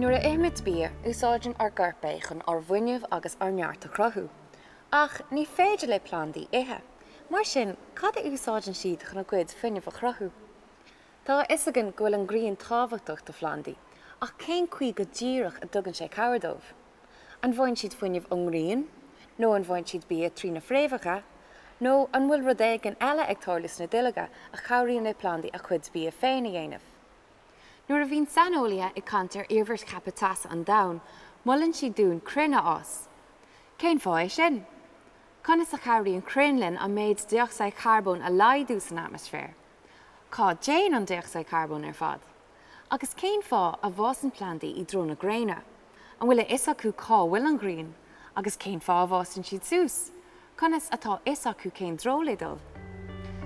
Nuair a ithimid bia, úsáideann ár gcorp é chun ár bhfuinneamh agus ár neart a chruthú. Ach ní féidir le plandaí ithe. Mar sin, cad a úsáideann siad chun a gcuid fuinnimh a chruthú? Tá a fhios againn go bhfuil an ghrian tábhachtach do phlandaí, ach cén chaoi go díreach a dtugann sé cabhair dóibh? An bhfaigheann siad fuinneamh ón ngrian? Nó an bhfaigheann siad bia trí na fréamhacha? Nó an bhfuil rud éigin eile ag tarlú sna duilleoga a chabhraíonn le plandaí a chuid bia féin a dhéanamh? Nuair a bhíonn saineolaithe ag caint ar iarmhairt cheaptha teasa an domhain, molann siad dúinn crainn a fhás. Cén fáth é sin? Conas a chabhraíonn crainn linn an méid dé-ocsaíd charbóin a laghdú san atmaisféar? Cá dtéann an dé-ocsaíd charbóin ar fad? Agus cén fáth a bhfásann plandaí i dtreo na gréine? An bhfuil a fhios acu cá bhfuil an ghrian? Agus cén fáth a bhfásann siad suas? Conas atá a fhios acu cén treo le dul?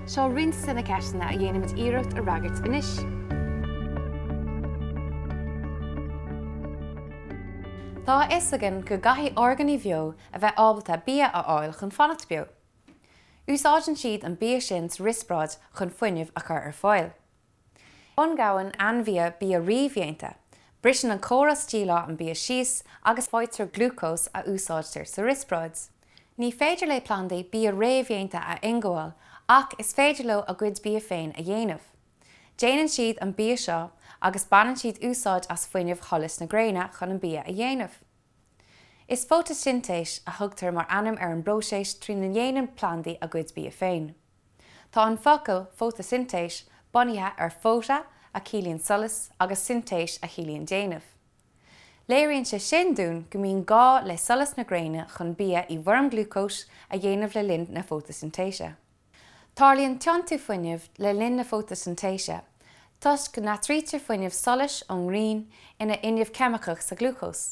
Seo roinnt de na ceisteanna a dhéanfaimid iarracht a fhreagairt anois. Tá a fhios againn go gcaithfidh orgánaigh bheo a bheith ábalta bia a fháil chun fanacht beo. Úsáideann siad an bia sin sa riospráid chun fuinneamh a chur ar fáil. Ionghabhann ainmhithe bia réamhdhéanta, briseann an córas díleá an bia síos agus faightear glúcós a úsáidtear sa riospráid. Ní féidir le plandaí bia réamhdhéanta a ionghabháil ach is féidir leo a gcuid bia féin a dhéanamh. Déanann siad an bia seo agus baineann siad úsáid as fuinneamh sholas na gréine chun an bia a dhéanamh. Is fótaisintéis a thugtar mar ainm ar an bpróiseas trína ndéanann plandaí a gcuid bia féin. Tá an focal fótaisintéis bunaithe ar phota a chiallaíonn solas agus sintéis a chiallaíonn déanamh. Léiríonn sé sin dúinn go mbíonn gá le solas na gréine chun bia i bhfoirm glúcóis a dhéanamh le linn na fótaisintéise. Tarlaíonn tiontú fuinnimh le linn na fótaisintéise toisc go n-athraítear fuinneamh solais ón ngrian ina fhuinneamh ceimiceach sa ghlúcós.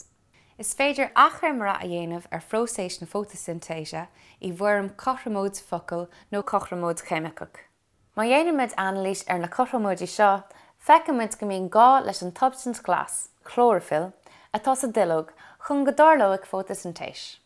Is féidir achoimre a dhéanamh ar phróiseas na fótaisintéise i bhfoirm cothromóid focal nó cothromóid cheimiceach. Má dhéanaimid anailís ar na cothromóidí seo, feicimid go mbíonn gá leis an tsubstaint ghlas, clóraifill, atá sa duilleog chun go dtarlóidh fótaisintéis.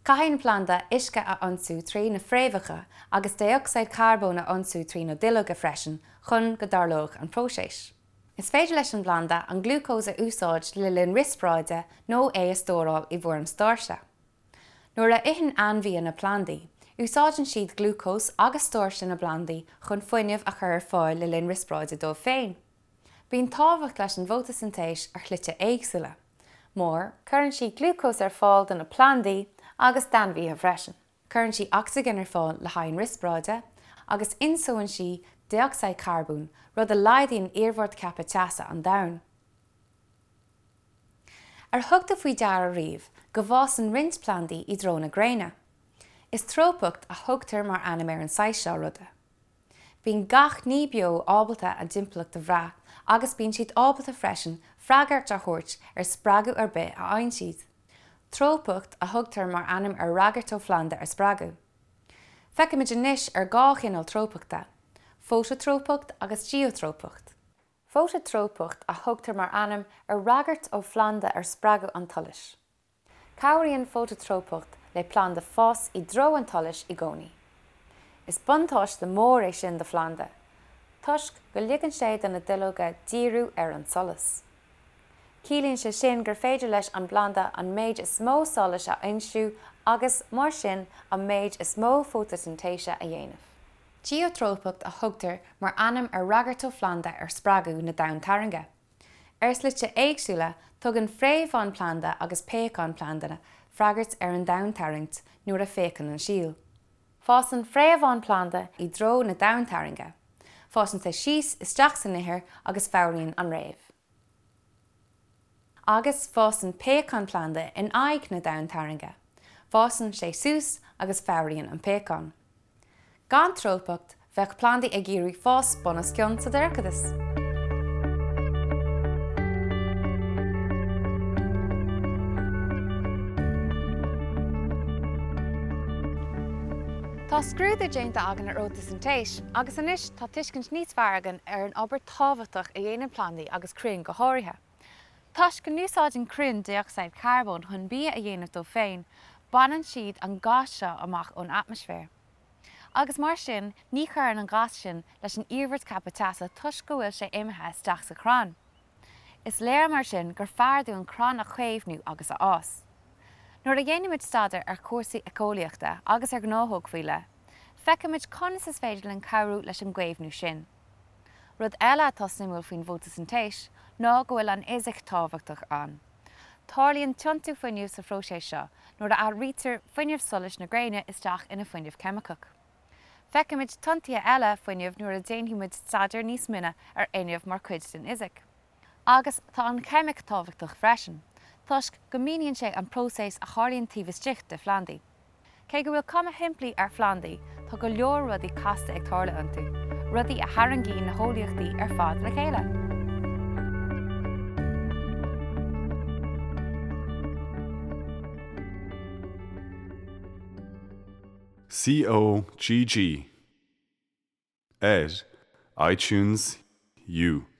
Caithfidh an planda uisce a ionsú trí na fréamhacha agus dé-ocsaíd charbóin a ionsú trí na duilleoga freisin chun go dtarlóidh an próiseas. Is féidir leis an bplanda an glúcós a úsáid le linn riospráide nó é a stóráil i bhfoirm stáirse. Nuair a itheann ainmhithe na plandaí, úsáideann siad glúcós agus stáirse na bplandaí chun fuinneamh a chur ar fáil le linn riospráide dóibh féin. Bíonn tábhacht leis an bhfótaisintéis ar shlite éagsúla, mar. Cuireann sí glúcós ar fáil do na plandaí agus d'ainmhithe freisin. Cuireann sí ocsaigin ar fáil le haghaidh an riospráide, agus ionsónn sí dé-ocsaíd charbóin, rud a laghdaíonn iarmhairt ceaptha teasa an domhain. Ar thug tú faoi deara riamh go bhfásann roinnt plandaí i dtreo na gréine? Is trópacht a thugtar mar ainm ar an saghas seo ruda. Bíonn gach ní beo ábalta a dtimpeallacht a bhrath agus bíonn siad ábalta freisin freagairt a thabhairt ar spreagadh ar bith a fhaigheann siad. Trópacht a thugtar mar ainm ar fhreagairt ó phlanda ar spreagadh. Feicfimid anois ar dhá chineál trópachta, fótatrópacht agus geotrópacht. Fótatrópacht a thugtar mar ainm ar fhreagairt ó phlanda ar spreagadh an tsolais. Cabhraíonn fótatrópacht le planda fás i dtreo an tsolais i gcónaí. Is buntáiste mór é sin do phlanda, toisc go ligeann sé do na duilleoga díriú ar an solas. Ciallaíonn sé sin gur féidir leis an bplanda an méid is mó solais a fhoinsiú agus, mar sin, an méid is mó fótaisintéise a dhéanamh. Geotrópacht a thugtar mar ainm ar fhreagairt ó phlanda ar spreagadh na domhantarrainge. Ar shlite éagsúla, tugann fréamháin planda agus péacáin planda freagairt ar an domhantarraingt nuair a phéacann an síol. Fásann fréamháin planda i dtreo na domhantarrainge. Fásann sé síos isteach san ithir agus fabhraíonn an fhréamh. Agus fásann péacán planda in aghaidh na domhantarrainge. Fásann sé suas agus fabhraíonn an péacán. Gan trópacht, bheadh plandaí ag iarraidh fás bunoscionn sa dorchadas. Tá scrúdú déanta againn ar fhótaisintéis agus anois tá tuiscint níos fearr againn ar an obair tábhachtach a dhéanann plandaí agus crainn go háirithe. Toisc go n-úsáideann crainn dé-ocsaíd charbóin chun bia a dhéanamh dóibh féin, baineann siad an gás seo amach ón atmaisféar. Agus mar sin, ní chuireann an gás sin leis an iarmhairt ceaptha teasa toisc go bhfuil sé imithe isteach sa chrann. Is léir mar sin gur fearr dúinn crainn a chaomhnú agus a fhás. Nuair a dhéanaimid staidéar ar chúrsaí éiceolaíochta agus ar ghnáthóg faoi leith, feicimid conas is féidir linn cabhrú leis an gcaomhnú sin. Rud eile atá suimiúil faoin bhfótasintéis ná go bhfuil an fhisic tábhachtach ann. Tarlaíonn tiontú fuinnimh sa phróiseas seo nuair a athraítear fuinneamh solais na gréine isteach ina fuinneamh ceimiceach. Feicfimid tiontuithe eile fuinnimh nuair a déanfaimid staidéar níos mine ar fhuinneamh mar chuid den fhisic. Agus tá an cheimic tábhachtach freisin, toisc go míníonn sé an próiseas a tharlaíonn taobh istigh de phlandaí. Cé go bhfuil cuma shimplí ar phlandaí, tá go leor rudaí casta ag tarlú iontu, rudaí a tharraingíonn na heolaíochtaí ar fad le chéile. COGG ar iTunes U.